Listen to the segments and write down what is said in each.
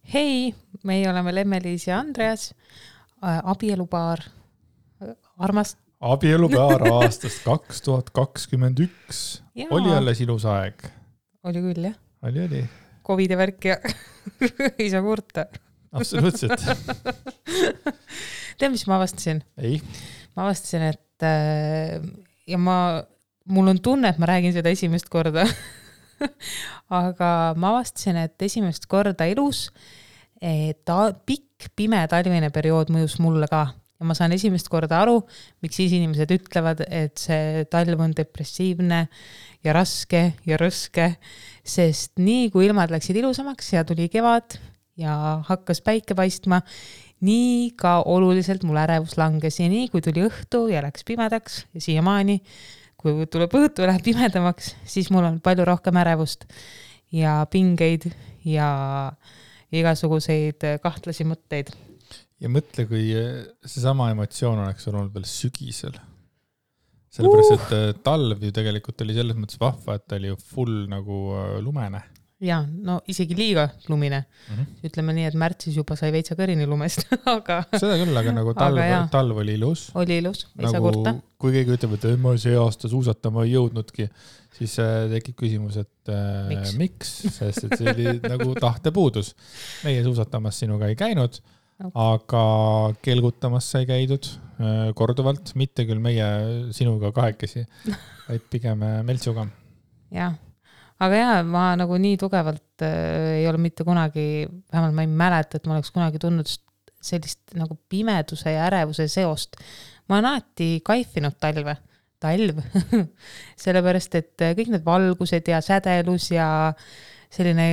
Hei, meie oleme Lemmeliis ja Andreas, abielupaar, armast. Abielupaar aastast 2021. Jaa. Oli alles ilus aeg. Oli küll, jah. Oli. Covidi värk ja ei saa kurta. Absoluutselt. Tead, mis ma avastasin? Ei. Ma avastasin, et ja mul on tunne, et ma räägin seda esimest korda. Aga ma avastasin, et esimest korda elus pikk pime talvine periood mõjus mulle ka. Ja ma saan esimest korda aru, miks siis inimesed ütlevad, et see talv on depressiivne ja raske ja rõske, sest nii kui ilmad läksid ilusamaks ja tuli kevad ja hakkas päike paistma, nii ka oluliselt mul ärevus langes ja nii kui tuli õhtu ja läks pimedaks ja siiamaani, kui tuleb õhtu ja läheb pimedamaks, siis mul on palju rohkem ärevust ja pingeid ja igasuguseid kahtlasi mõtteid. Ja mõtle, kui seesama emotsioon oleks olnud veel sügisel. Sellepärast, et talv ju tegelikult oli selles mõttes vahva, et ta oli ju full nagu lumene. Ja, no isegi liiga lumine. Ütleme nii, et märtsis juba sai veitsa kõrini lumest. Aga seda küll, aga nagu talv oli ilus. Oli ilus, ei saa nagu, kurta. Kui keegi ütleb, et ma see aasta suusatama ei jõudnudki, siis tekib küsimus, et miks? Sest et see oli nagu tahtepuudus. Meie suusatamas sinuga ei käinud, aga kelgutamas sai käidud korduvalt, mitte küll meie sinuga kahekesi, vaid pigem Meltsuga. Jah, aga jah, ma nagu nii tugevalt ei ole mitte kunagi, vähemalt ma ei mäleta, et ma oleks kunagi tundnud sellist nagu pimeduse ja ärevuse seost. Ma olen alati kaifinud talv, sellepärast, et kõik need valgused ja sädelus ja selline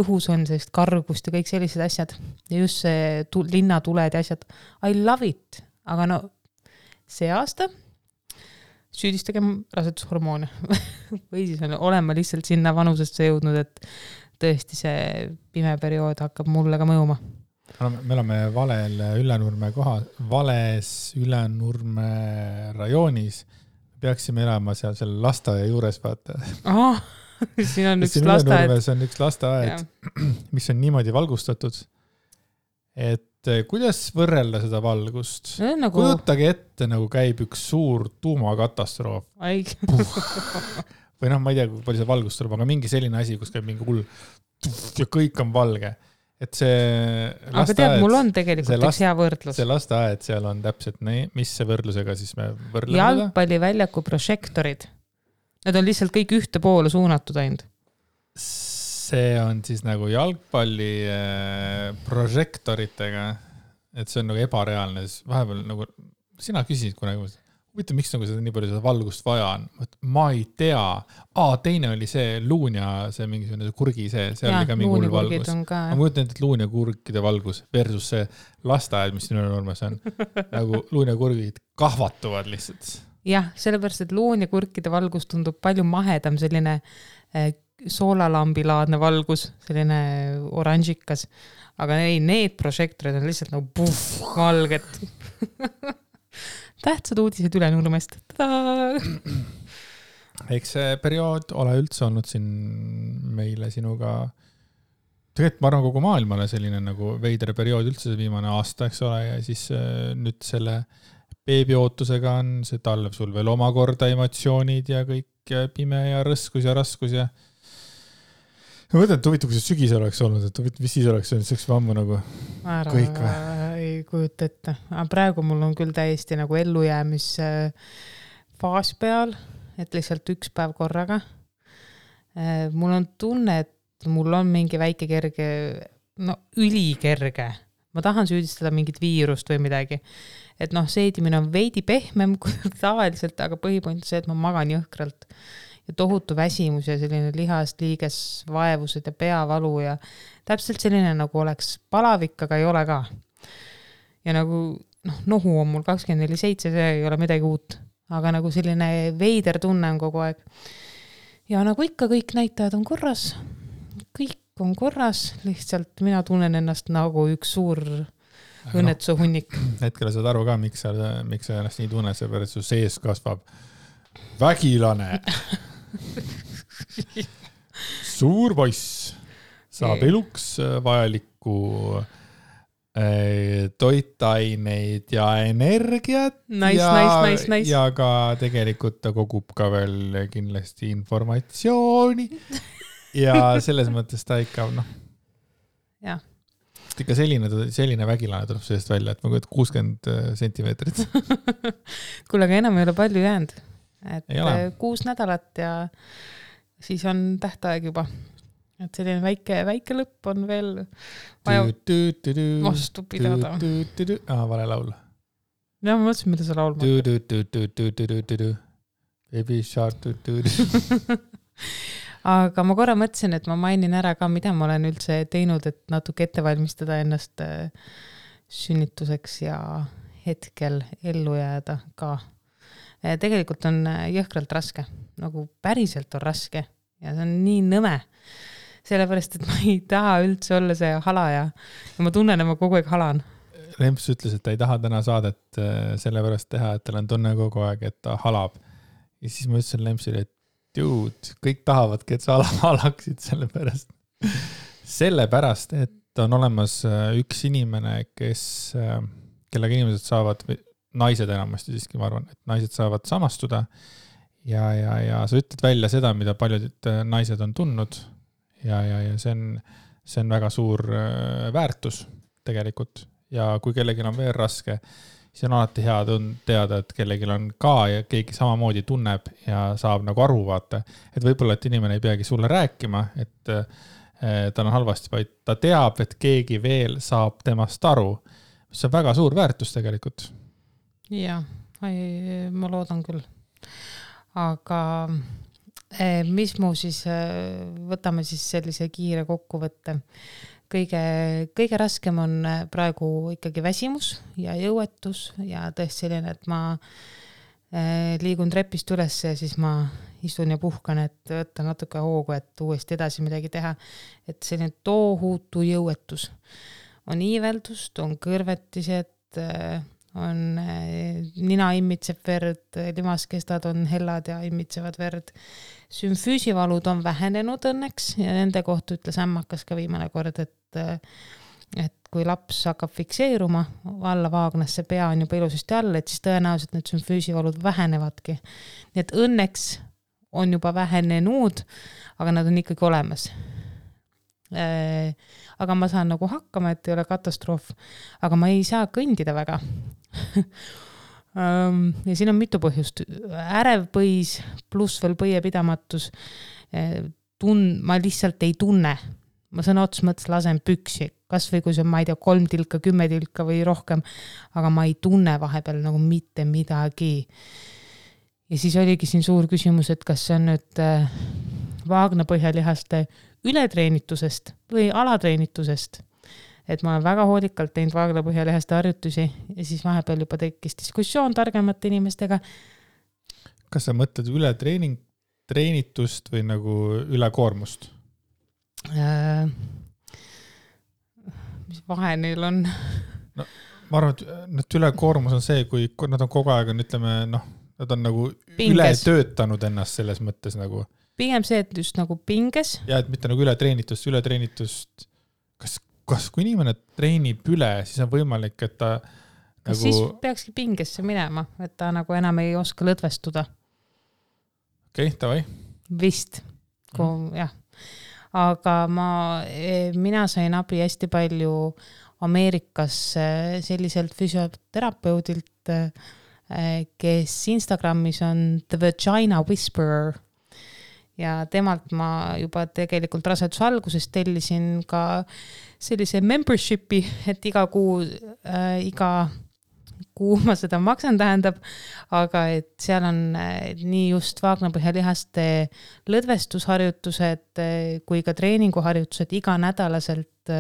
õhus on sellist kargust ja kõik sellised asjad. Ja just see linnatuled ja asjad. I love it. Aga no see aasta süüdistegem rasedushormoone. Või siis olema lihtsalt sinna vanusesse jõudnud, et tõesti see pime periood hakkab mulle ka mõjuma. Me oleme vales Ülenurme rajoonis. Peaksime elama seal selle lasteaia juures, vaata. Siin on üks lasteaed. On üks lasteaed, mis on niimoodi valgustatud, et kuidas võrrelda seda valgust? Nagu... Kujutage ette, nagu käib üks suur tuumakatastroof. Või noh, ma ei tea, kui palju see valgust tuleb, aga mingi selline asi, kus käib mingi hull ja kõik on valge. Et see lasteaed... Aga tead, mul on tegelikult üks hea võrdlus. See lasteaed seal on täpselt nii, mis see võrdlusega siis me võrdleme? Jalgpalliväljaku prožektorid. Need on lihtsalt kõik ühte poole suunatud ainult. See on siis nagu jalgpalli prožektoritega, et see on nagu ebareaalne. Vahepeal nagu, sina küsisid kunagi, miks nagu seda nii palju seda valgust vaja on? Ma ei tea. Teine oli see luun ja see mingisugune kurgi see oli ka mingi hull valgus. Ma mõtlen, et luun ja kurkide valgus versus see lasteaed, mis siin Ülenurmes on. Nagu luun ja kurgid kahvatuvad lihtsalt. Jah, sellepärast, et luun ja kurkide valgus tundub palju mahedam, selline soolalambilaadne valgus, selline oranžikas. Aga ei, need prožektorid on lihtsalt nagu valged. Tähtsad uudised Ülenurmest. Eks see periood ole üldse olnud siin meile sinuga, tegelikult ma arvan kogu maailmale selline nagu veidre periood üldse see viimane aasta, eks ole, ja siis nüüd selle beebiootusega on see talv sul veel omakorda emotsioonid ja kõik pime ja rõskus ja raskus ja ma mõtlen, et huvitav, kui see sügis oleks olnud, et mis siis oleks olnud, see oleks ammu nagu kõik või? Ei kujuta ette. Aga praegu mul on küll täiesti nagu ellujäämis faas peal, et lihtsalt üks päev korraga. Mul on tunne, et mul on mingi väike kerge, no ülikerge. Ma tahan süüdistada mingit viirust või midagi. Et noh, seedimine on veidi pehmem kui tavaliselt, aga põhipoint on see, et ma magan jõhkralt. Ja tohutu väsimus ja selline lihast liiges vaevused ja peavalu ja täpselt selline nagu oleks palavik, aga ei ole ka. Ja nagu nohu on mul 24/7, see ei ole midagi uut, aga nagu selline veider tunne on kogu aeg. Ja nagu ikka kõik näitajad on korras, kõik on korras, lihtsalt mina tunnen ennast nagu üks suur õnnetuse hunnik. Hetkel saad aru ka, miks sa ennast nii tunne, see pärast su sees kasvab vägilane. Suur poiss. saab eluks vajalikku toitaineid ja energiat nice. ja ka tegelikult ta kogub ka veel kindlasti informatsiooni ja selles mõttes ta ikka jah. Ikka selline vägilane tuleb sellest välja, et ma kujutan 60 sentimeetrit. Kuule, aga enam ei ole palju jäänud. Et 6 nädalat ja siis on tähtaeg juba. Et selline väike lõpp on veel vaja vastu pidada. Vale laul. Ja ma mõtlesin, mida sa laulma. Baby shark. Aga ma korra mõtlesin, et ma mainin ära ka, mida ma olen üldse teinud, et natuke ette valmistada ennast sünnituseks ja hetkel ellu jääda ka. Tegelikult on jõhkralt raske, nagu päriselt on raske ja see on nii nõme. Sellepärast, et ma ei taha üldse olla see halaja ja ma tunnen, et ma kogu aeg halan. Remps ütles, et ta ei taha täna saadet sellepärast teha, et tal on tunne kogu aeg, et ta halab. Ja siis ma ütlesin Lempsile, et kõik tahavadki, et sa halaksid sellepärast, et on olemas üks inimene, kellega inimesed saavad, naised enamasti siiski, ma arvan, et naised saavad samastuda ja sa ütled välja seda, mida paljud naised on tundnud ja see on väga suur väärtus tegelikult ja kui kellelgi on veel raske, siis on alati hea teada, et kellelgi on ka ja keegi samamoodi tunneb ja saab nagu aru vaata. Et võib-olla, et inimene ei peagi sulle rääkima, et tal on halvasti, vaid ta teab, et keegi veel saab temast aru. See on väga suur väärtus tegelikult. Jah, ma loodan küll. Aga mis mu siis, võtame siis sellise kiire kokkuvõtte. Kõige raskem on praegu ikkagi väsimus ja jõuetus ja tõesti selline, et ma liigun trepist üles ja siis ma istun ja puhkan, et võtta natuke hoogu, et uuesti edasi midagi teha. Et selline toohutu jõuetus. On iiveldust, on kõrvetised, on nina immitseb verd, limaskestad on hellad ja imitsevad verd. Sümfüüsivalud on vähenenud õnneks ja nende kohta ütles ämmakas ka viimane kord, et kui laps hakkab fikseeruma alla vaagnasse, pea on juba ilusasti all, et siis tõenäoliselt need sümfüüsivalud vähenevadki. Nii et õnneks on juba vähenenud, aga nad on ikkagi olemas. Aga ma saan nagu hakkama, et ei ole katastroof, aga ma ei saa kõndida väga. Ja siin on mitu põhjust. Ärev põis pluss veel põiepidamatus. Ma lihtsalt ei tunne. Ma sõna ots mõttes lasen püksi. Kas või kui see on, ma ei tea, 3 tilka, 10 tilka või rohkem, aga ma ei tunne vahepeal nagu mitte midagi. Ja siis oligi siin suur küsimus, et kas see on nüüd vaagnapõhjalihaste ületreenitusest või alatreenitusest. Et ma olen väga hoolikalt teinud vaagnapõhjalihaste harjutusi ja siis vahepeal juba tekkis diskussioon targemate inimestega. Kas sa mõtled ületreenitust või nagu ülekoormust? Mis vahe neil on? No, ma arvan, et ülekoormus on see, kui nad on kogu aeg, ütleme, nad on nagu pinges. Üle töötanud ennast selles mõttes nagu. Pigem see, et just nagu pinges. Ja, et mitte nagu ületreenitust. Kas kui inimene treenib üle, siis on võimalik, et ta kas nagu... siis peakski pingesse minema, et ta nagu enam ei oska lõdvestuda. Okei, tavai. Vist, jah. Aga mina sain abi hästi palju Ameerikas selliselt füsioterapeudilt, kes Instagramis on The Vagina Whisperer. Ja temalt ma juba tegelikult raseduse alguses tellisin ka sellise membershipi, et iga kuu ma seda maksan tähendab, aga et seal on nii just vaagnapõhjalihaste lõdvestusharjutused kui ka treeninguharjutused iganädalaselt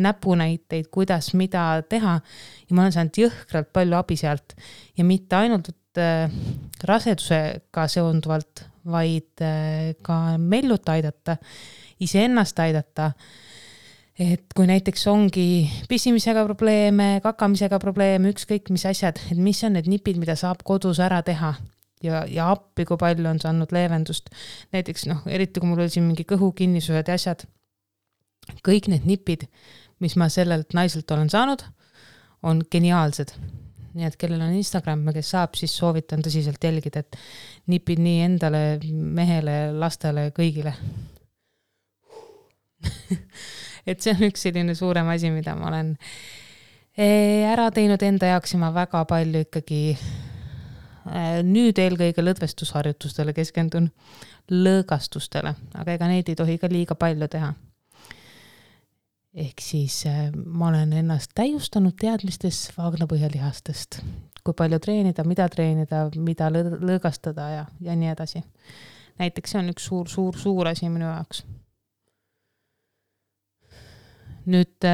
näpunäiteid, kuidas mida teha ja ma olen saanud jõhkralt palju abi sealt ja mitte ainult rasedusega seonduvalt, vaid ka mellut aidata, iseennast aidata. Et kui näiteks ongi pissimisega probleeme, kakamisega probleeme, ükskõik mis asjad, et mis on need nipid, mida saab kodus ära teha ja appi, kui palju on saanud leevendust. Näiteks, eriti kui mul oli siin mingi kõhukinnisused ja asjad, kõik need nipid, mis ma sellelt naiselt olen saanud, on geniaalsed. Nii et kellel on Instagram, kes saab, siis soovitan tõsiselt jälgida, et nipid nii endale, mehele, lastele, kõigile. Et see on üks selline suurem asi, mida ma olen ära teinud enda jaoks ja ma väga palju ikkagi nüüd eelkõige lõdvestusharjutustele keskendun, lõõgastustele, aga ega neid ei tohi ka liiga palju teha. Ehk siis ma olen ennast täiustanud teadmistes vaagnapõhjalihastest, kui palju treenida, mida lõõgastada ja nii edasi. Näiteks see on üks suur asi minu jaoks. Nüüd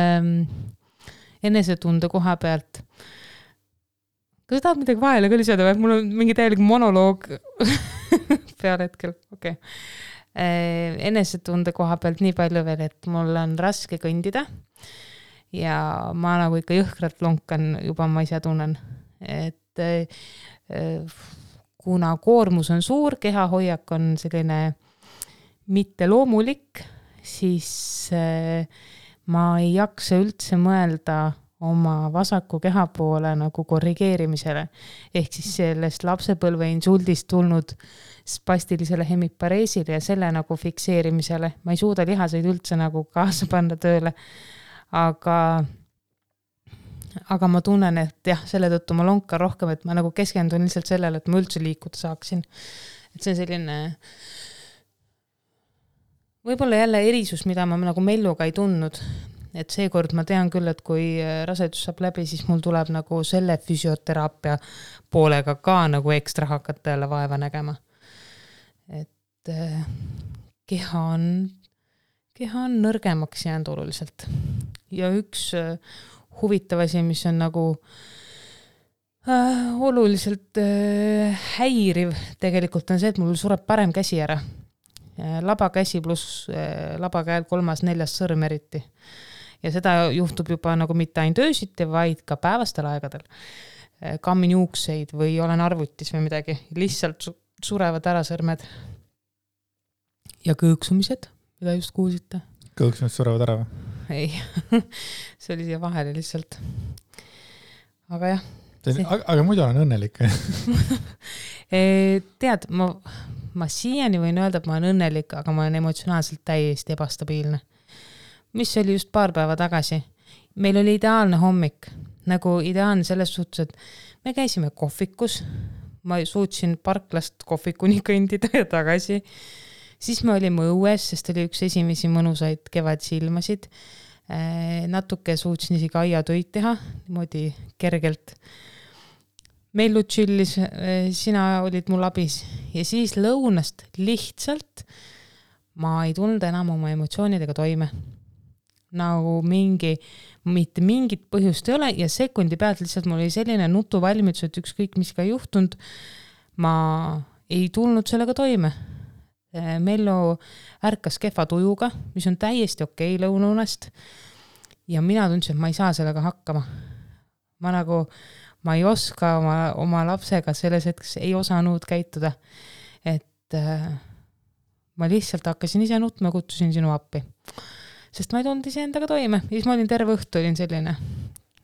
enesetunde koha pealt. Kas tahad midagi vahele ka lisada või? Mul on mingi täielik monoloog peal hetkel. Okay. Enesetunde koha pealt nii palju veel, et mul on raske kõndida ja ma nagu ikka jõhkralt lonkan, juba ma ise tunnen, et kuna koormus on suur, kehahoiak on selline mitte loomulik, siis ma ei jaksa üldse mõelda oma vasaku keha poole nagu korrigeerimisele. Ehk siis sellest lapsepõlve insuldist tulnud spastilisele hemipareesile ja selle nagu fikseerimisele. Ma ei suuda lihaseid üldse nagu kaasa panna tööle. Aga ma tunnen, et jah, selle tõttu ma lonkan rohkem, et ma nagu keskendun lihtsalt sellele, et ma üldse liikuda saaksin. Et see on selline võib-olla jälle erisus, mida ma nagu melluga ei tundnud. Et seekord ma tean küll, et kui rasedus saab läbi, siis mul tuleb nagu selle füsioteraapia poolega ka nagu ekstra hakata jälle vaeva nägema. Et keha on nõrgemaks jäänud oluliselt. Ja üks huvitav asi, mis on nagu oluliselt häiriv tegelikult on see, et mul sureb parem käsi ära. Labakäsi pluss labakäel 3.-4. sõrm eriti. Ja seda juhtub juba nagu mitte ainult öösiti, vaid ka päevastel aegadel. Kammin juukseid või olen arvutis või midagi. Lihtsalt surevad ära sõrmed. Ja kõõksumised, mida just kuulsite. Kõõksumised surevad ära või? Ei, see oli siia vahele lihtsalt. Aga jah. Aga muidu olen õnnelik. Tead, ma siiani võin öelda, et ma olen õnnelik, aga ma olen emotsionaalselt täiesti ebastabiilne. Mis oli just paar päeva tagasi. Meil oli ideaalne hommik. Nagu ideaalne selles suhtes, et me käisime kohvikus. Ma suutsin parklast kohvikuni kõndida ja tagasi. Siis me olime õues, sest oli üks esimesi mõnusaid kevadsilmasid. Natuke suutsin isegi aiatöid teha, niimoodi kergelt. Mellu chillis, sina olid mul abis. Ja siis lõunast lihtsalt ma ei tulnud enam oma emotsioonidega toime. Nagu mitte mingit põhjust ei ole ja sekundi pealt lihtsalt mul oli selline nutuvalmidus, et ükskõik mis ka juhtunud, ma ei tulnud sellega toime. Mellu ärkas kehva tujuga, mis on täiesti okei lõunaunest ja mina tundsin, et ma ei saa sellega hakkama. Ma ei oska oma lapsega selles hetkes ei osanud käituda, et ma lihtsalt hakkasin ise nutma ja kutsusin sinu appi. Sest ma ei tulnud ise endaga toime. Ja siis ma olin terve õhtu, olin selline,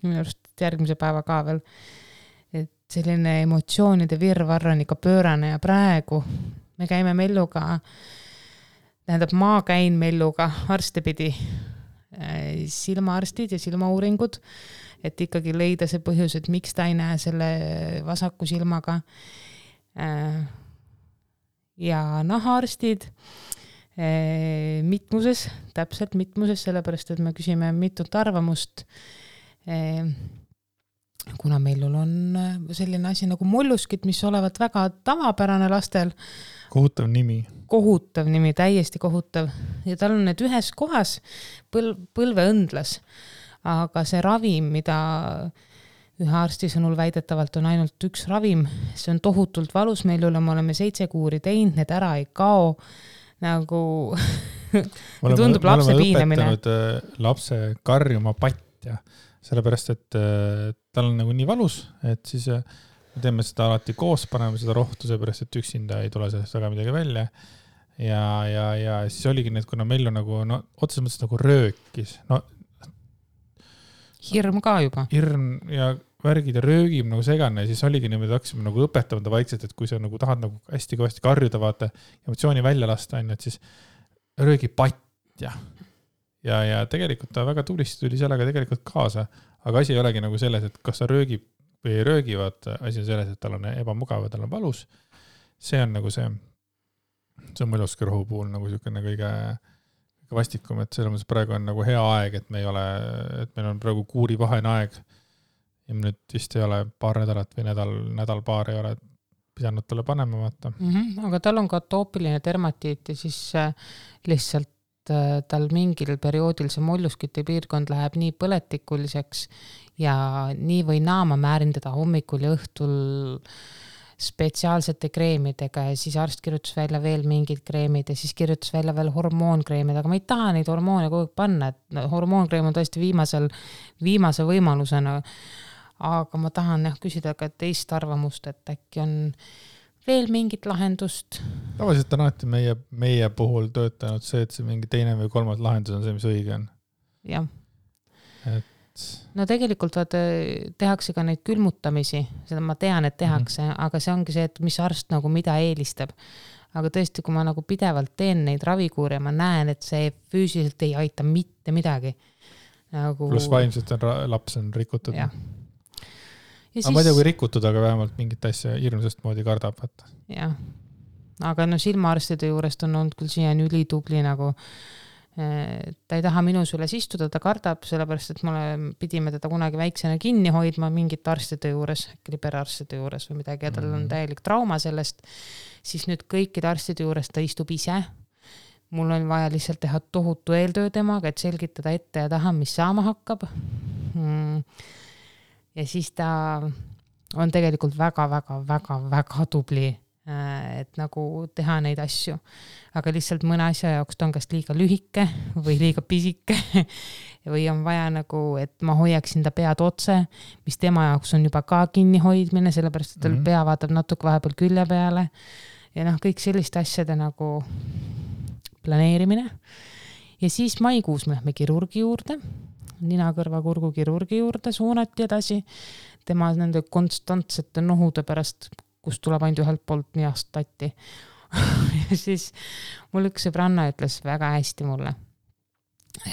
minu arust järgmise päeva ka veel, et selline emotsioonide virvarr on ikka pöörane ja praegu me käime Melluga, tähendab ma käin Melluga arstipidi, silmaarstid ja silmauuringud, et ikkagi leida see põhjus, et miks ta ei näe selle vasaku silmaga ja nahaarstid mitmuses, täpselt mitmuses, sellepärast, et me küsime mitut arvamust, kuna meil on selline asi nagu molluskid, mis olevat väga tavapärane lastel. Kohutav nimi. Kohutav nimi, täiesti kohutav. Ja tal on need ühes kohas põlveõndlas, aga see ravim, mida ühe arsti sõnul väidetavalt on ainult üks ravim, see on tohutult valus meil üle, me oleme 7 kuuri teinud, need ära ei kao, nagu tundub lapse piinamine. Me oleme õpetanud lapse karjuma patja, sellepärast, et tal on nagu nii valus, et siis me teeme seda alati koos, paneme seda rohtu, seepärast, et üksinda ei tule sellest väga midagi välja. ja siis oligi need, kuna Mellu nagu, no otseses mõttes nagu röökis, no hirm ka juba. Hirm ja värgid ja röögib nagu segane ja siis oligi niimoodi, hakkasime nagu õpetama ta vaikselt, et kui sa nagu tahad nagu hästi kõvasti karjuda, vaata, emotsiooni välja lasta, et siis röögi patt ja tegelikult ta väga tublisti tuli sellega tegelikult kaasa, aga asi ei olegi nagu selles, et kas ta röögib või ei röögi, vaata, asi on selles, et tal on ebamugav ja tal on valus. See on nagu see on mõluski rohu puhul nagu niisugune kõige vastikum, et selles mõttes praegu on nagu hea aeg, et meil on praegu kuurivahene aeg ja nüüd vist ei ole paar nädalat või nädal-paar ei ole pidanud talle panema, vaata. Aga tal on ka atoopiline dermatiit ja siis lihtsalt tal mingil perioodil see molluskite piirkond läheb nii põletikuliseks ja nii või naa ma määrin teda hommikul ja õhtul spetsiaalsete kreemidega ja siis arst kirjutas välja veel mingid kreemid ja siis kirjutas välja veel hormoonkreemid, aga ma ei taha neid hormoone kogu aeg panna, et hormoonkreem on tõesti viimase võimalusena, aga ma tahan küsida ka teist arvamust, et äkki on veel mingit lahendust. Tavaliselt on alati meie puhul töötanud see, et see mingi teine või kolmas lahendus on see, mis õige on. Jah. No tegelikult tehakse ka neid külmutamisi, seda ma tean, et tehakse, aga see ongi see, et mis arst nagu mida eelistab. Aga tõesti, kui ma nagu pidevalt teen neid ravikuure, ma näen, et see füüsiliselt ei aita mitte midagi. Nagu... Plus vaimselt laps on rikutud. Ja siis... ma ei tea, kui rikutud, aga vähemalt mingit asja hirmsast moodi kardab. Jah, aga no silmaarstide juurest on olnud küll siiani ülitubli nagu ta ei taha minu süles istuda, ta kardab, sellepärast, et pidime teda kunagi väiksena kinni hoidma mingit arstide juures, liberarstide juures või midagi ja tal on täielik trauma sellest, siis nüüd kõikide arstide juures ta istub ise. Mul on vaja lihtsalt teha tohutu eeltöö temaga, et selgitada ette ja taha, mis saama hakkab. Ja siis ta on tegelikult väga tubli, et nagu teha neid asju. Aga lihtsalt mõne asja jaoks ta on kas liiga lühike või liiga pisike või on vaja nagu, et ma hoiaksin ta pead otse, mis tema jaoks on juba ka kinni hoidmine, sellepärast, et tal pea vaatab natuke vahepeal külje peale ja kõik selliste asjade nagu planeerimine. Ja siis maikuus me lähme kirurgi juurde, nina-kõrva-kurgu kirurgi juurde suunati edasi, tema nende konstantsete nohude pärast, kus tuleb ainult ühelt poolt nihast tatti. Ja siis mul üks sõbranna ütles väga hästi mulle,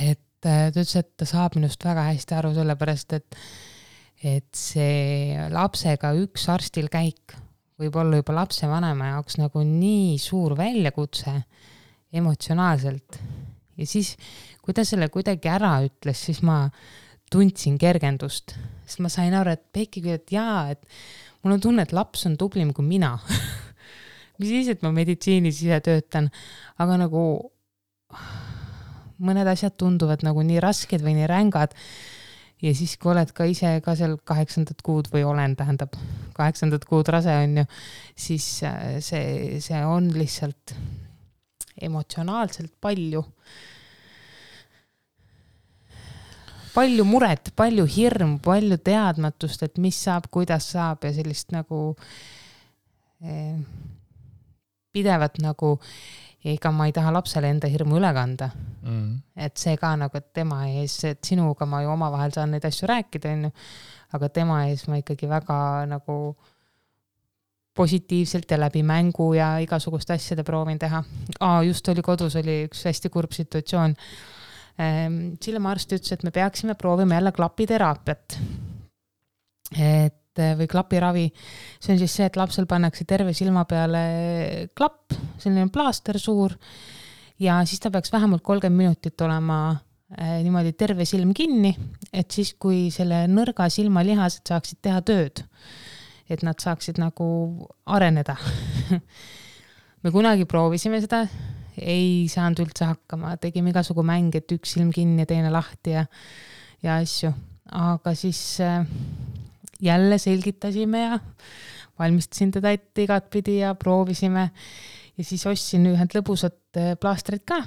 et ta ütles, et ta saab minust väga hästi aru sellepärast, et see lapsega üks arstil käik võib olla juba lapse vanema jaoks nagu nii suur väljakutse emotsionaalselt. Ja siis, kui ta selle kuidagi ära ütles, siis ma tundsin kergendust, sest ma sain aru, et Peiki küll, et jaa, et mul on tunne, et laps on tublim kui mina. Mis siis, et ma meditsiinis ise töötan, aga nagu mõned asjad tunduvad nagu nii rasked või nii rängad ja siis, kui oled ka ise ka seal 8. kuud või olen, tähendab 8. kuud rase on ju, siis see on lihtsalt emotsionaalselt palju muret, palju hirm, palju teadmatust, et mis saab, kuidas saab ja sellist nagu pidevat nagu, ega ma ei taha lapsele enda hirmu üle kanda. Et see ka nagu, et tema ees, et sinuga ma ju omavahel saan neid asju rääkida, aga tema ees ma ikkagi väga nagu positiivselt ja läbi mängu ja igasugust asjade proovin teha. Just oli kodus, oli üks hästi kurb situatsioon. Silmaarst ütles, et me peaksime proovima jälle klapiteraapiat. Või klapiravi. See on siis see, et lapsel pannakse terve silma peale klapp, selline plaaster suur ja siis ta peaks vähemalt 30 minutit olema niimoodi terve silm kinni, et siis, kui selle nõrga silmalihased saaksid teha tööd, et nad saaksid nagu areneda. Me kunagi proovisime seda, ei saanud üldse hakkama, tegime igasugu mäng, et üks silm kinni ja teine lahti ja asju, aga siis jälle selgitasime ja valmistasin teda ette igat pidi ja proovisime ja siis ostsin ühed lõbusad plaastrid ka.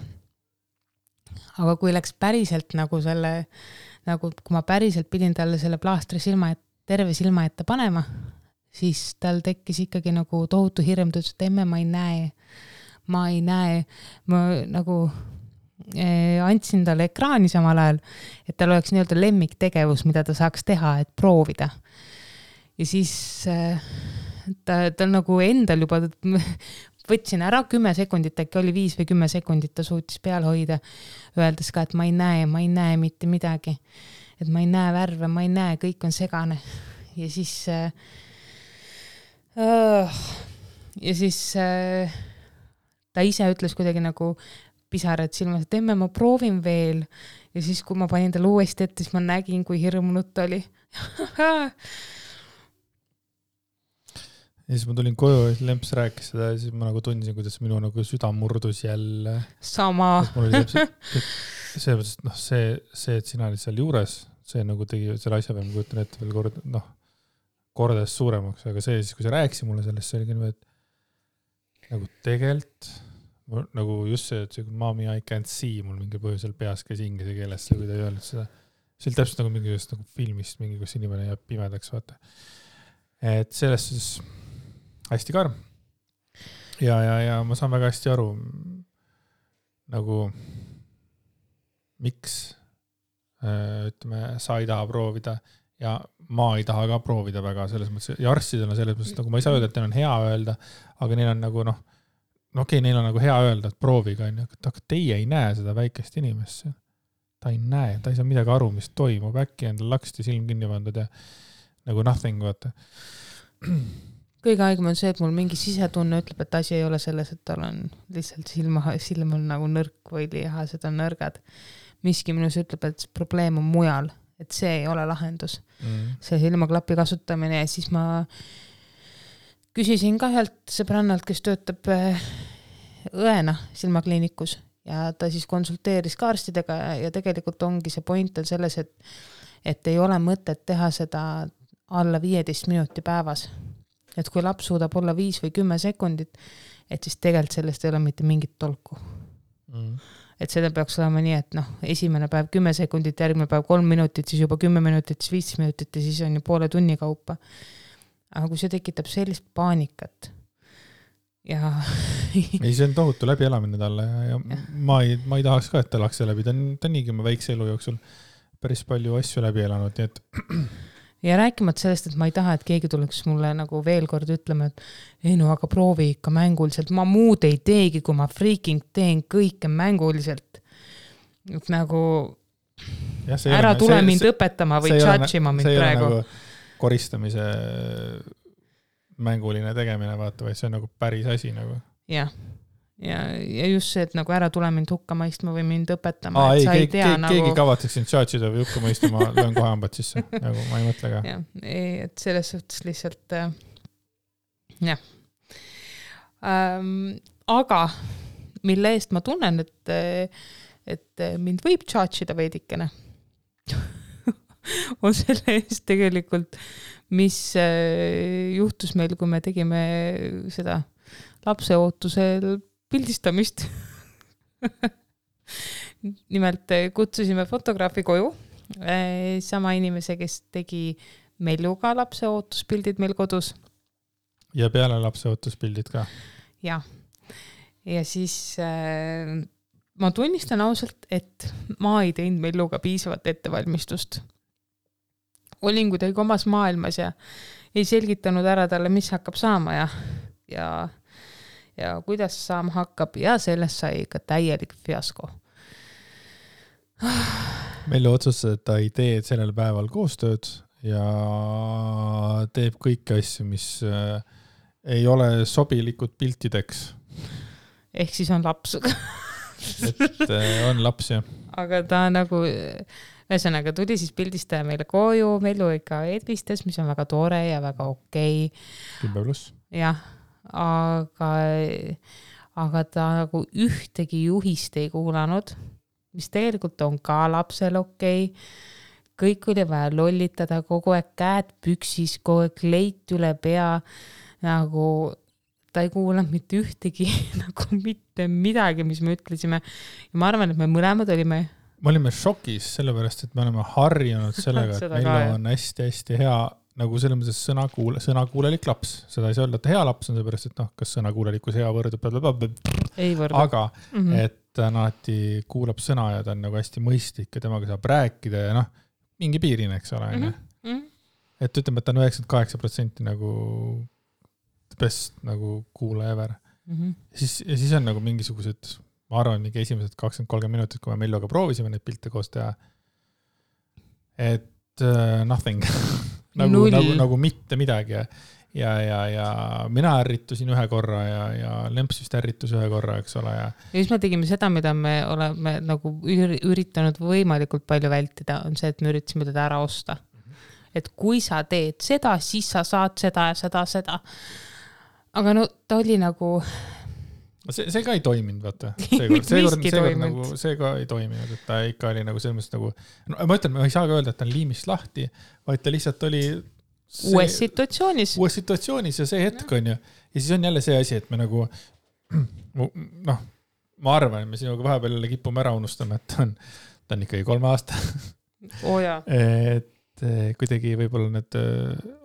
Aga kui läks päriselt nagu kui ma päriselt pidin talle selle plaastri terve silma ette panema, siis tal tekkis ikkagi nagu tohutu hirm, ta ütles, et emme, ma ei näe. ma ei näe, ma nagu andsin talle ekraani samal ajal, et tal oleks nii-öelda lemmiktegevus, mida ta saaks teha, et proovida. Ja siis ta nagu endal juba võtsin ära 10 sekundit, äkki oli 5 või 10 sekundit, ta suutis peal hoida, öeldes ka, et ma ei näe mitte midagi. Et ma ei näe värve, ma ei näe, kõik on segane. Ja siis ta ise ütles kuidagi nagu pisarad silmas, et emme, ma proovin veel. Ja siis, kui ma panin talle uuesti ette, siis ma nägin, kui hirmunud ta oli. Ja siis ma tulin koju ja Lemps rääkis seda ja siis ma nagu tundsin, kuidas minu nagu süda murdus jälle. Sama. See, et sina olid seal juures, see nagu tegi selle asja peal, ma kujutan ette veel kordades suuremaks, aga see siis, kui sa rääkisi mulle sellest, see oli nii, et nagu tegelt, nagu just see, et mommy I can't see, mul mingi põhjusel peas käis inglise keeles, kui ta ei öelnud seda. See oli täpselt nagu mingi nagu filmist, mingi, kus inimene jääb pimedaks, vaata. Et sellest siis hästi karm. Ja ma saan väga hästi aru, nagu miks ütleme, sa ei taha proovida ja ma ei taha ka proovida väga selles mõttes. Ja arstidel on selles mõttes, nagu ma ei saa öelda, et neil on hea öelda, aga neil on nagu okei, neil on nagu hea öelda, et prooviga, aga teie ei näe seda väikest inimest. Ta ei näe, ta ei saa midagi aru, mis toimub. Äkki endal laksti silm kinni pandud ja nagu nothing, vaata. Kõige aegem on see, et mul mingi sisetunne ütleb, et asi ei ole selles, et tal on lihtsalt silm on nagu nõrk või lihased on nõrgad. Miski minus ütleb, et probleem on mujal, et see ei ole lahendus. See silmaklapi kasutamine ja siis ma küsisin ka ühelt sõbrannalt, kes töötab õena silmakliinikus ja ta siis konsulteeris ka arstidega ja tegelikult ongi see point on selles, et ei ole mõtet teha seda alla 15 minuti päevas. Et kui laps suudab olla 5 või 10 sekundit, et siis tegelikult sellest ei ole mitte mingit tolku. Et seda peaks olema nii, et esimene päev 10 sekundit, järgmine päev 3 minutit, siis juba 10 minutit, siis 15 minutit ja siis on ju poole tunni kaupa. Aga kui see tekitab sellist paanikat ja... ei, see on tohutu läbielamine talle ja ma ei tahaks ka, et ta elaks läbi. Ta on niigi oma väikse elu jooksul päris palju asju läbi elanud, nii et... Ja rääkimata sellest, et ma ei taha, et keegi tuleks mulle nagu veel kord ütlema, et ei aga proovi ikka mänguliselt. Ma muud ei teegi, kui ma freaking teen kõike mänguliselt. Et nagu ära tule mind õpetama või tšatšima mind praegu. See ei ole nagu koristamise mänguline tegemine, vaata, või see on nagu päris asi nagu. Jah. Ja just see, et nagu ära tule mind hukka mõistma või mind õpetama. Keegi kavatseks sind tšatšida või hukka mõistma, löön kohe hambad sisse. Nagu ma ei mõtle ka. Et selles suhtes lihtsalt jah. Aga mille eest ma tunnen, et mind võib tšatšida veidikene, on selle eest tegelikult, mis juhtus meil, kui me tegime seda lapseootusel pildistamist. Nimelt kutsusime fotograafi koju, sama inimese, kes tegi Melluga lapseootuspildid meil kodus. Ja peale lapseootuspildid ka? Ja siis ma tunnistan ausalt, et ma ei teinud Melluga piisavat ettevalmistust. Olin kuidagi omas maailmas ja ei selgitanud ära talle, mis hakkab saama ja kuidas saama hakkab ja sellest sai ka täielik fiasko. Mellu otsustas, et ta ei tee sellel päeval koostööd ja teeb kõiki asju, mis ei ole sobilikud piltideks. Ehk siis on laps. Et on laps, jah. Aga ta nagu, ühesõnaga tuli siis pildistaja meile koju, Mellu ikka edvistas, mis on väga tore ja väga okei. 10+. Jah. Aga ta nagu ühtegi juhist ei kuulanud, mis tegelikult on ka lapsel okei. Kõik oli vaja lollitada, kogu aeg käed püksis, kogu aeg leit üle pea, nagu ta ei kuulanud mitte ühtegi, nagu mitte midagi, mis me ütlesime. Ja ma arvan, et me mõlemad olime šokis, sellepärast, et me oleme harjunud sellega, et Mellu on hästi-hästi hea nagu selles mõttes sõnakuulelik laps. Seda ei saa öelda, et hea laps on seepärast, et kas sõnakuulelikkus hea võrdub. Ei võrdu. Aga et ta alati kuulab sõna ja ta on nagu hästi mõistlik ja temaga saab rääkida ja mingi piirini, eks ole. Et ütleme, et ta on 98% nagu best nagu kuulaja ever. Ja siis on nagu mingisugused, ma arvan, mingi esimesed 20-30 minutit, kui me Melloga proovisime neid pilte koos teha. Et nothing. nagu mitte midagi ja mina ärritusin ühe korra ja Lemps vist ärritus ühe korra, eks ole. Ja siis me tegime seda, mida me oleme nagu üritanud võimalikult palju vältida, on see, et me üritasime teda ära osta. Et kui sa teed seda, siis sa saad seda ja seda. Aga no ta oli nagu... See ka ei toiminud, vaata. See ka ei toiminud, et ta ikka oli nagu selles mõttes nagu... No, ma ütlen, ma ei saa ka öelda, et ta on liimist lahti, vaid ta lihtsalt oli... Uues situatsioonis ja see hetk on ju. Ja siis on jälle see asi, et me nagu... ma arvan, et me sinuga vahepeal kipume ära unustama, et ta on ikkagi 3 aasta. Et kuidagi võib-olla need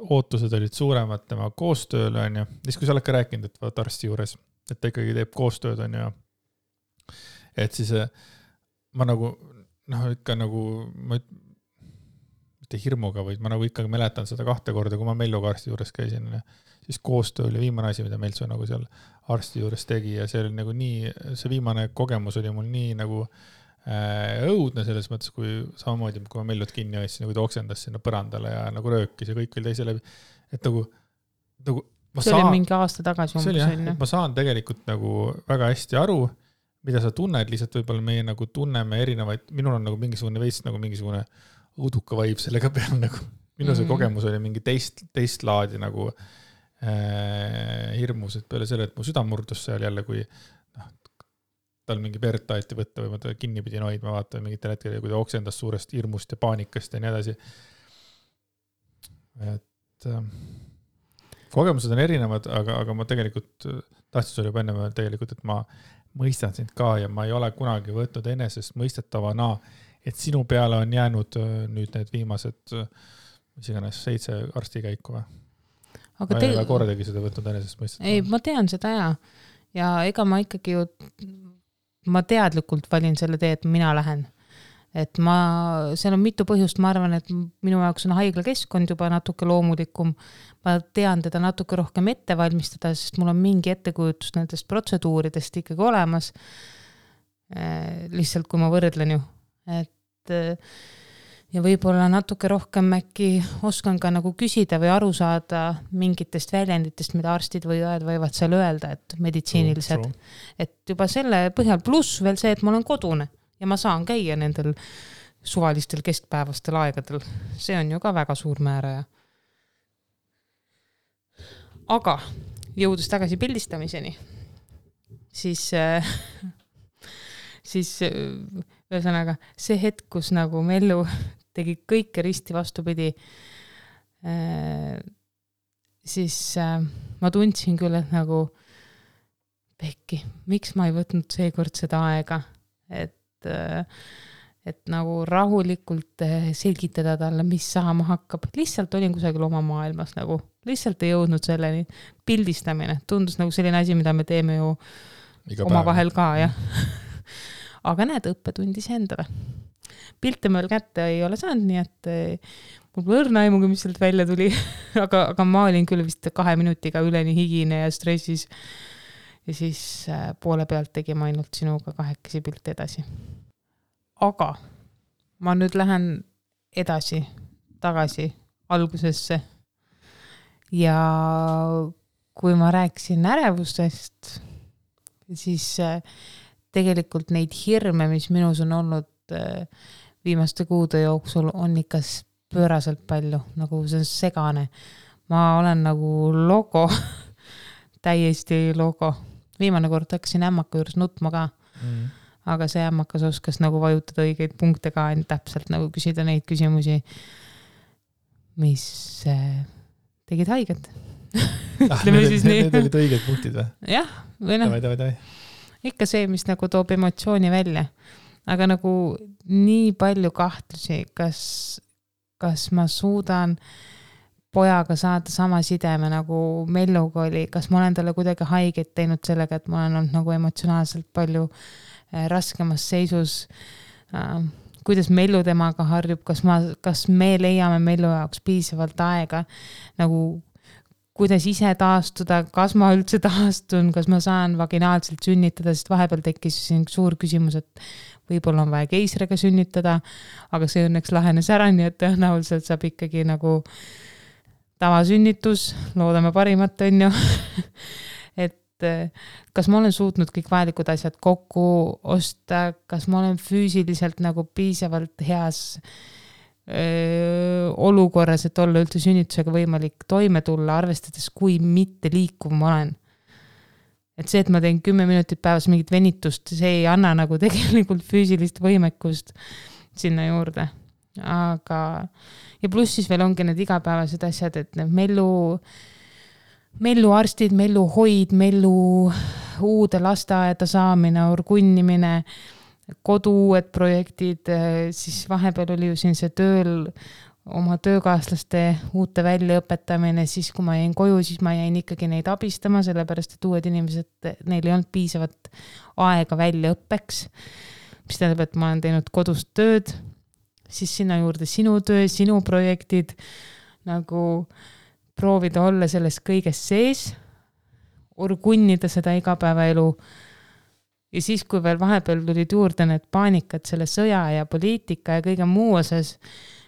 ootused olid suuremad tema koostööl on ju. Siis kui sa oled ka rääkinud, et vaat arsti juures... et ta ikkagi teeb koostööd on ja et siis ma nagu ikka nagu ma mitte hirmuga, vaid ma nagu ikkagi mäletan seda 2 korda, kui ma Melloga arsti juures käisin ja siis koostöö oli viimane asi, mida Meltsu nagu seal arsti juures tegi ja see oli nagu nii, see viimane kogemus oli mul nii nagu õudne selles mõttes, kui samamoodi, kui ma Mellut kinni hoidsin, nagu ta oksendas sinna põrandale ja nagu röökis ja kõik oli teise läbi, et nagu see oli mingi aasta tagasi ma saan tegelikult nagu väga hästi aru, mida sa tunned, lihtsalt võib-olla meie nagu tunneme erinevaid, minul on nagu mingisugune veits nagu mingisugune õuduka vaib sellega peal nagu, minu see kogemus oli mingi teist laadi nagu hirmus, et peale selle, et mu süda murdus seal jälle, kui tal mingi verd taheti võtta või ma ta kinni pidin hoidma, vaata mingitel hetkel, kui ta oksendas suurest hirmust ja paanikast ja nii edasi. Et kogemused on erinevad, aga ma tegelikult tahtsin sulle juba enne tegelikult, et ma mõistan sind ka ja ma ei ole kunagi võtnud enesest mõistetavana, et sinu peale on jäänud nüüd need viimased mis iganes 7 arstikäiku või? Ma ei ole kordagi seda võtnud enesest mõistetavana. Ei, ma tean seda ja ega ma ikkagi ju ma teadlikult valin selle tee, et mina lähen. Et seal on mitu põhjust, ma arvan, et minu jaoks on haiglakeskkond juba natuke loomulikum. Ma tean teda natuke rohkem ette valmistada, sest mul on mingi ettekujutus nendest protseduuridest ikkagi olemas. Lihtsalt kui ma võrdlen ju. Et, ja võib-olla natuke rohkem äkki oskan ka nagu küsida või aru saada mingitest väljenditest, mida arstid või õed võivad seal öelda, et meditsiinilised. Et juba selle põhjal pluss veel see, et ma olen kodune. Ja ma saan käia nendel suvalistel keskpäevastel aegadel. See on ju ka väga suur määraja. Aga jõudes tagasi pildistamiseni, siis ühesõnaga see hetk, kus nagu Mellu tegi kõike risti vastupidi, siis ma tundsin küll, et nagu Pekki, miks ma ei võtnud seekord seda aega, et nagu rahulikult selgitada talle, mis saama hakkab. Lihtsalt olin kusagil oma maailmas nagu, lihtsalt ei jõudnud selleni. Pildistamine tundus nagu selline asi, mida me teeme ju oma vahel ka, jah. Aga näed, õppetundis endale. Pilte meil kätte ei ole saanud, nii et mul võrna aimuga, mis sealt välja tuli. aga ma olin küll vist 2 minutiga üleni higine ja stressis. Ja siis poole pealt tegime ainult sinuga 2 pilte edasi. Aga ma nüüd lähen edasi, tagasi algusesse. Ja kui ma rääkisin ärevustest, siis tegelikult neid hirme, mis minus on olnud viimaste kuude jooksul, on ikka pööraselt palju, nagu see on segane. Ma olen nagu logo, täiesti logo. Viimane kord hakkasin ämmaka juures nutma ka, aga see ämmakas oskas nagu vajutada õigeid punkte ka, täpselt nagu küsida neid küsimusi, mis tegid haiget. Need olid õiged punktid või? Jah, või noh. Ikka see, mis nagu toob emotsiooni välja. Aga nagu nii palju kahtlusi, kas ma suudan pojaga saada sama sideme nagu Melluga oli, kas ma olen talle kuidagi haiget teinud sellega, et ma olen olnud nagu emotsionaalselt palju raskemas seisus, kuidas Mellu temaga harjub, kas me leiame Mellu jaoks piisavalt aega, nagu kuidas ise taastuda, kas ma üldse taastun, kas ma saan vaginaalselt sünnitada, sest vahepeal tekkis siin suur küsimus, et võib-olla on vaja keisriga sünnitada, aga see õnneks lahenes ära, nii et tõenäoliselt saab ikkagi nagu tavasünnitus, loodame parimat, on ju. Et kas ma olen suutnud kõik vajalikud asjad kokku osta, kas ma olen füüsiliselt nagu piisavalt heas olukorras, et olla üldse sünnitusega võimalik toime tulla, arvestades, kui mitte liikuv ma olen. Et see, et ma teen 10 minutit päevas mingit venitust, see ei anna nagu tegelikult füüsilist võimekust sinna juurde. Aga, ja pluss siis veel ongi need igapäevased asjad, et need Mellu arstid, Mellu hoid, Mellu uude lasteaeda saamine, orgunnimine, kodu uued projektid, siis vahepeal oli ju siin see tööl oma töökaaslaste uute väljaõpetamine, siis kui ma jäin koju, siis ma jäin ikkagi neid abistama, sellepärast et uued inimesed, neil ei olnud piisavat aega väljaõppeks, mis tähendab, et ma olen teinud kodust tööd, siis sinna juurde sinu töö, sinu projektid, nagu proovida olla selles kõiges sees, orgunnida seda igapäevaelu. Ja siis, kui veel vahepeal tulid juurde need paanikad selle sõja ja poliitika ja kõige muu osas,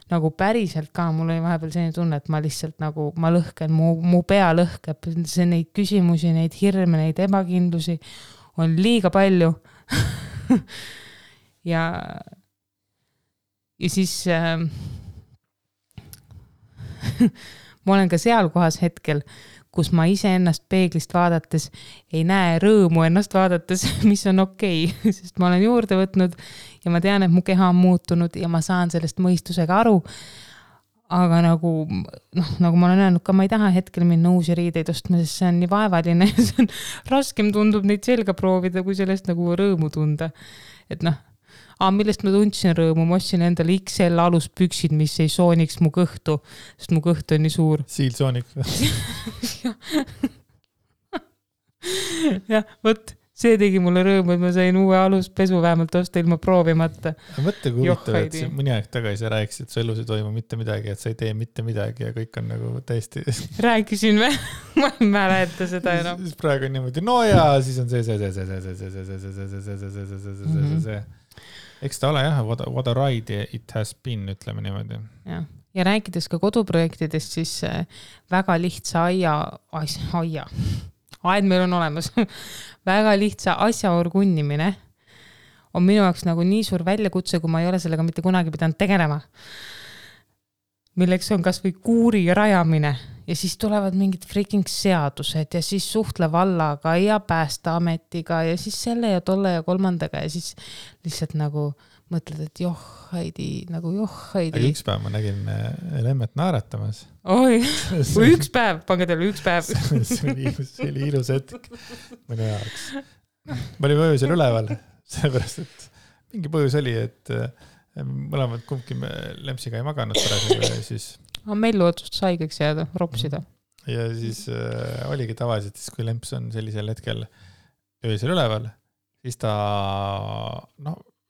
nagu päriselt ka, mul oli vahepeal selline tunne, et ma lihtsalt nagu, ma lõhken, mu pea lõhkeb, see neid küsimusi, neid hirme, neid ebakindlusi on liiga palju. ja siis ma olen ka seal kohas hetkel, kus ma ise ennast peeglist vaadates ei näe rõõmu ennast vaadates, mis on okei, sest ma olen juurde võtnud ja ma tean, et mu keha on muutunud ja ma saan sellest mõistusega aru. Aga nagu ma olen öelnud ka, ma ei taha hetkel minna uusi riideid ostma, sest see on nii vaevaline ja see on raskem tundub neid selga proovida, kui sellest nagu rõõmu tunda. Et millest ma tundsin rõõmu, ma ostsin endale XL aluspüksid, mis ei sooniks mu kõhtu, sest mu kõht on nii suur. Siilsoonik. jah, võt, see tegi mulle rõõmu, et ma sain uue aluspesu vähemalt osta ilma proovimata. Mõtle, kui huvitav, et mõni aeg tagasi rääkisid, et su elus ei toimu mitte midagi, et sa ei tee mitte midagi ja kõik on nagu täiesti... Rääkisin või? Ma ei mäleta seda enam. Siis praegu on niimoodi, no ja siis on see. Eks ta ole jah, what a ride it has been, ütleme niimoodi. Ja rääkides ka koduprojektidest, siis väga lihtsa aed meil on olemas, väga lihtsa asja orgunnimine on minu jaoks nagu nii suur väljakutse, kui ma ei ole sellega mitte kunagi pidanud tegelema. Milleks on kas või kuuri rajamine ja siis tulevad mingid freaking seadused ja siis suhtle vallaga ja Päästeametiga ja siis selle ja tolle ja kolmandaga ja siis lihtsalt nagu mõtled, et Heidi. Aga üks päev ma nägin Lemmet naeratamas. Oi, üks päev, pange teile üks päev. see oli ilus hetk mõne jaoks. Ma olin öösel üleval, sellepärast, et mingi põhjus oli, et mõlemad kumbki Lempsiga ei maganud pärast ja siis... Mellu otsustas haigeks jääda, ropsida. Ja siis oligi tavaliselt, kui Lemps on sellisel hetkel öösel üleval, siis ta,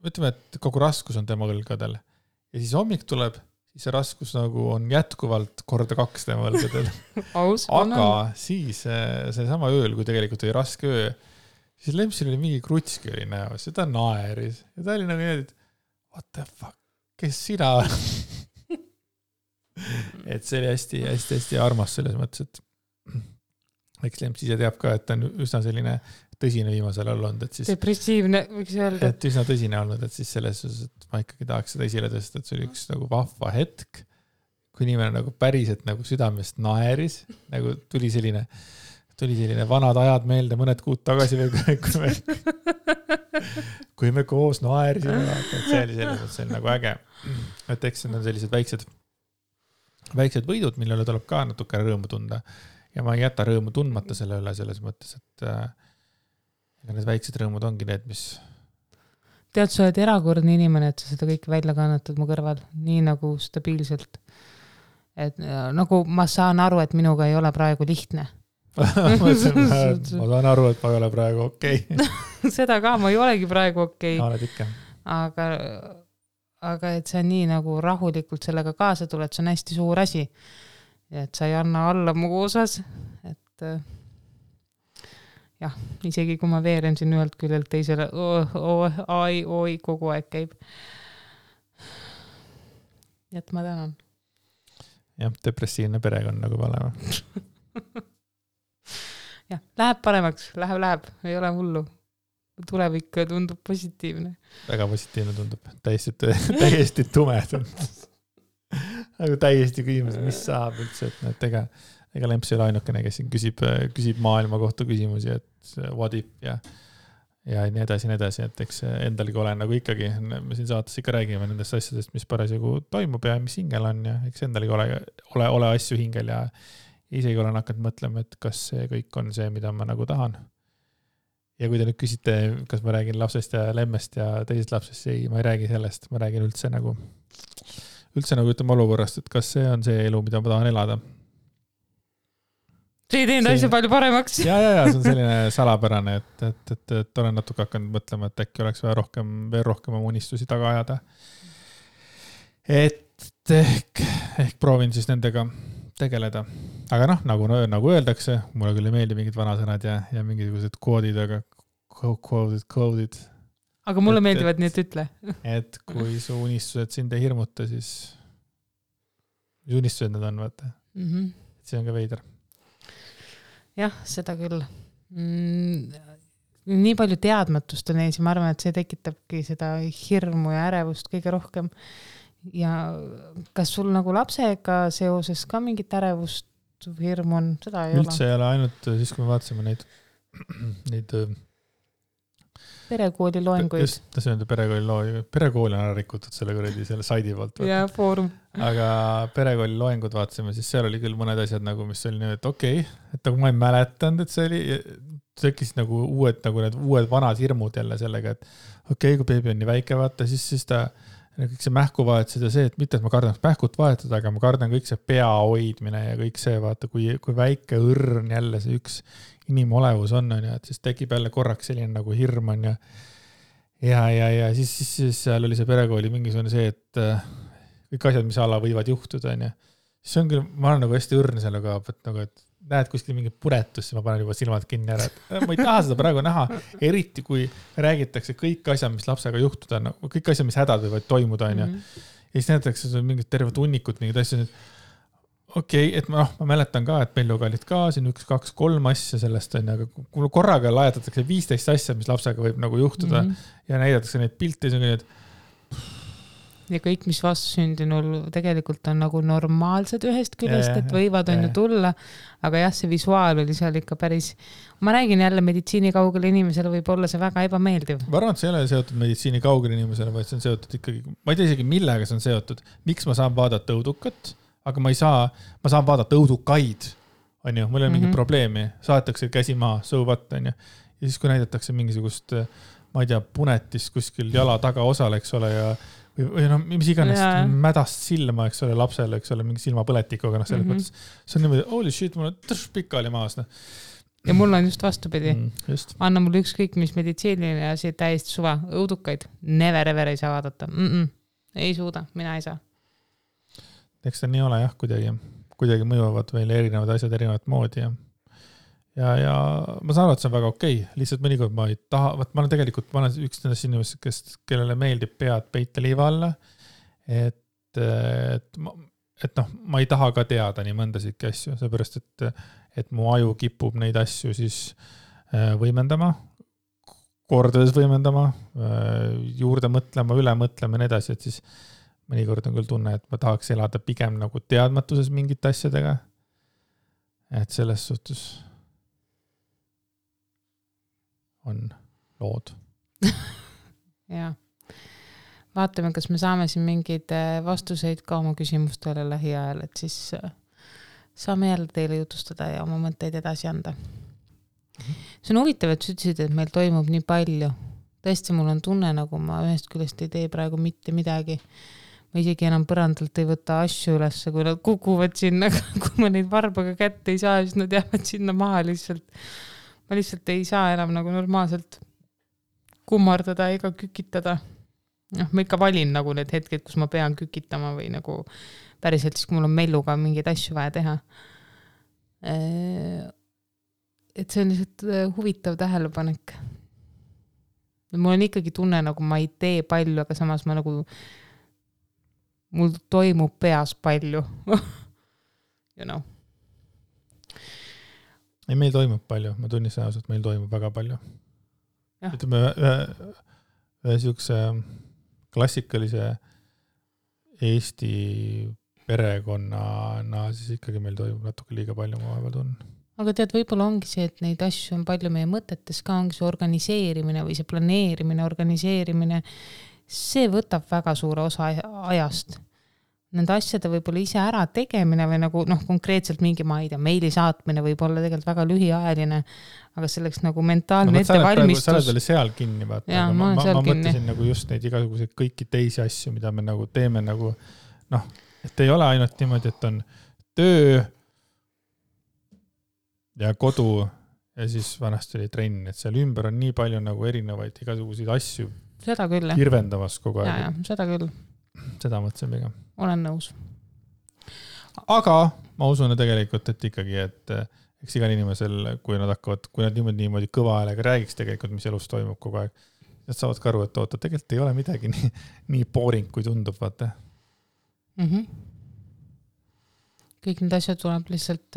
ütleme, et kogu raskus on tema õlgadel. Ja siis hommik tuleb, siis see raskus nagu on jätkuvalt korda 2 tema õlgadel. Aga siis see sama ööl, kui tegelikult oli raske öö, siis Lempsil oli mingi krutski oli näos ja ta naeris. Ja ta oli nagu nii, et what the fuck, kes sina? Et see oli hästi armas selles mõttes, et eks Lemps ise teab ka, et ta on üsna selline tõsine viimasel all olnud. Et siis, depressiivne, võiks öelda. Et üsna tõsine olnud, et siis selles suhtes, et ma ikkagi tahaks seda esile tõsta, et see oli üks nagu vahva hetk, kui inimene nagu päriselt nagu südamest naeris, nagu tuli selline vanad ajad meelde mõned kuud tagasi veel, kui me koos naerisime, et see oli selles mõttes, see on nagu äge. Et eks need on sellised väiksed võidud, millele tuleb ka natuke rõõmu tunda ja ma ei jäta rõõmu tundmata selle üle selles mõttes, et need väiksed rõõmud ongi need, mis... Tead, sa oled erakordne inimene, et sa seda kõik välja kannatad mu kõrval, nii nagu stabiilselt. et nagu ma saan aru, et minuga ei ole praegu lihtne. ma saan aru, et ma ei ole praegu okei. Seda ka, ma ei olegi praegu okei. Oled ikka. Aga et sa nii nagu rahulikult sellega kaasa tuled, see on hästi suur asi. Et sa ei anna alla mu osas, et jah, isegi kui ma veeren siin ühelt küljelt teisele, oi, kogu aeg käib. Et ma tänan. Jah, depressiivne perekond nagu valema. jah, läheb paremaks, läheb, ei ole hullu. Tulevik tundub positiivne. Väga positiivne tundub, täiesti tume tundub. Nagu täiesti küsimus, mis saab üldse, et ega Lemps ei ole ainukene, kes siin küsib maailma kohta küsimusi, et what if ja nii edasi, et eks endalgi olen nagu ikkagi, me siin saates ikka räägime nendest asjadest, mis parasjagu toimub ja mis hingel on ja eks endalgi ole asju hingel ja isegi olen hakanud mõtlema, et kas see kõik on see, mida ma nagu tahan. Ja kui te nüüd küsite, kas ma räägin lapsest ja lemmest ja teisest lapsest, ei, ma ei räägi sellest, ma räägin üldse nagu ütleme olukorrast, et kas see on see elu, mida ma tahan elada. See ei teinud asja palju paremaks. Ja, see on selline salapärane, et olen natuke hakanud mõtlema, et äkki oleks vaja veel rohkem oma unistusi taga ajada. Et ehk proovin siis nendega tegeleda. Aga nagu öeldakse, mulle küll ei meeldi mingid vanasõnad ja mingisugused koodid, aga koodid. Aga mulle meeldivad, nii et ütle. Et kui su unistused sind ei hirmuta, siis mis unistused need on, vaata. See on ka veider. Jah, seda küll. Nii palju teadmatust on ees ja ma arvan, et see tekitabki seda hirmu ja ärevust kõige rohkem. Ja kas sul nagu lapsega seoses ka mingit ärevust või hirmu on? Seda ei üldse ei ole ainult siis, kui me vaatasime neid perekooli loenguid. Just, see on perekooli on ära rikutud selle saidi poolt. Ja foorum. Aga perekooli loengud vaatasime, siis seal oli küll mõned asjad, nagu, mis oli nii, et okei, et nagu ma ei mäletanud, et see oli, tekkis nagu need uued vanad hirmud jälle sellega, et okei, kui beebi on nii väike vaata, siis ta kõik see mähku vahetused ja see, et mitte, et ma kardan mähkut vahetada, aga ma kardan kõik see pea hoidmine ja kõik see, vaata, kui väike õrn jälle see üks inimolevus on, et siis tekib jälle korraks selline nagu hirm on ja siis seal oli see perekooli mingisugune see, et kõik asjad, mis ala võivad juhtuda, on siis on küll, ma olen nagu hästi õrn selle ka, et näed kuskil mingi puretus, ma panen juba silmad kinni ära, et ma ei taha seda praegu näha, eriti kui räägitakse kõik asjad, mis lapsega juhtuda, kõik asjad, mis hädad võivad toimuda, on ja siis näetakse mingid terved hunnikud, mingid asjad, okei, et ma mäletan ka, et meil olid ka siin 1, 2, 3 asja sellest, aga kui korraga laiatatakse 15 asja, mis lapsega võib nagu juhtuda ja näidatakse neid pilte, siis on kõik, ja kõik, mis vastusündinul tegelikult on nagu normaalsed ühest küljest, et võivad on ju tulla, aga jah, see visuaal oli seal ikka päris, ma räägin jälle meditsiini kaugele inimesele võib olla see väga ebameeldiv. Ma arvan, et see ei ole seotud meditsiini kaugele inimesele, vaid see on seotud ikkagi, ma ei tea isegi millega see on seotud, miks ma saan vaadata õudukat, aga ma saan vaadata õudukaid, on ju, mul ei ole mingit probleemi, saadetakse käsi maha, so what, on ju, ja siis kui näidatakse mingisugust, ma ei tea, punetist kuskil jala taga osale, eks ole, või mis iganes mädast silma, eks ole, lapsele, eks ole, mingi silmapõletikuga, selles mõttes. See on niimoodi, holy shit, mul on pikali maas. Ja mul on just vastupidi. Anna mulle ükskõik, mis meditsiiniline asi täiesti suva. Õudukaid never ever ei saa vaadata. Ei suuda, mina ei saa. Eks ta nii ole jah, kuidagi mõjuvad meile erinevad asjad erinevat moodi ja ma saan aru, et see on väga okei. Lihtsalt mõnikord ma ei taha, ma olen üks nendest inimesed, kellele meeldib pead peita liiva alla, et ma ei taha ka teada nii mõndasidki asju, seepärast, et mu aju kipub neid asju siis võimendama, kordades võimendama, juurde mõtlema, üle mõtlema ja nii edasi, et siis mõnikord on küll tunne, et ma tahaks elada pigem nagu teadmatuses mingite asjadega, et selles suhtes on lood. Ja. Vaatame, kas me saame siin mingeid vastuseid ka oma küsimustele lähiajal, et siis saame jälle teile jutustada ja oma mõtteid edasi anda. See on huvitav, et sa ütlesid, et meil toimub nii palju. Tõesti, mul on tunne, nagu ma ühest küljest ei tee praegu mitte midagi. ma isegi enam põrandalt ei võta asju ülesse, kui nad kukuvad sinna, kui ma neid varbaga kätte ei saa, siis nad jäävad sinna maha lihtsalt. Ma lihtsalt ei saa enam nagu normaalselt kummardada ega kükitada. Ma ikka valin nagu need hetked, kus ma pean kükitama või nagu päriselt siis, kui mul on melluga mingeid asju vaja teha. Et see on lihtsalt huvitav tähelepanek. Mul on ikkagi tunne, nagu ma ei tee palju, aga samas ma nagu, mul toimub peas palju. You know. Ei, meil toimub palju, ma tunnistan ausalt, meil toimub väga palju. Ütleme, ühe siukse klassikalise Eesti perekonnana, siis ikkagi meil toimub natuke liiga palju, ma vahepeal tunnen. Aga tead, võib-olla ongi see, et neid asju on palju meie mõtetes ka, ongi see organiseerimine või see planeerimine, organiseerimine, see võtab väga suure osa ajast. Nende asjade võib-olla ise ära tegemine või nagu konkreetselt mingi, ma ei tea, meili saatmine võib olla tegelikult väga lühiajaline, aga selleks nagu mentaalne ettevalmistus. Sa oled veel seal kinni, vaata. Ja, ma mõtlesin nagu just neid igasuguseid kõiki teisi asju, mida me nagu teeme nagu, et ei ole ainult niimoodi, et on töö ja kodu ja siis vanasti oli trenn, et seal ümber on nii palju nagu erinevaid igasuguseid asju. Seda küll, jah. Kirvendavas kogu aeg. Ja, seda küll. Seda mõtlesin pigem. Olen nõus. Aga ma usun tegelikult, et ikkagi, et eks igal inimesel, kui nad niimoodi kõva häälega räägiks tegelikult, mis elus toimub kogu aeg, nad saavad ka aru, et oota, tegelikult ei ole midagi nii boring, kui tundub, vaata. Kõik need asjad tuleb lihtsalt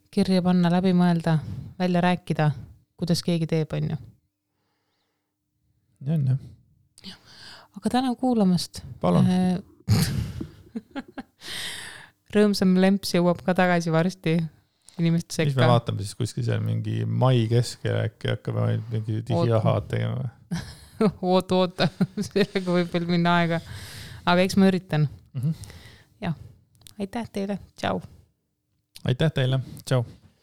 kirja panna, läbi mõelda, välja rääkida, kuidas keegi teeb, on ju. Ja on, jah. Aga täna kuulamast. Palun. Rõõmsam lemps jõuab ka tagasi varsti inimeste sekka. Mis me vaatame siis kuskil seal mingi mai keskel äkki hakkab mingi digiahaad tegema? Oota. Sellega võib veel minna aega. Aga eks ma üritan. Ja. Aitäh teile. Tšau. Aitäh teile. Tšau.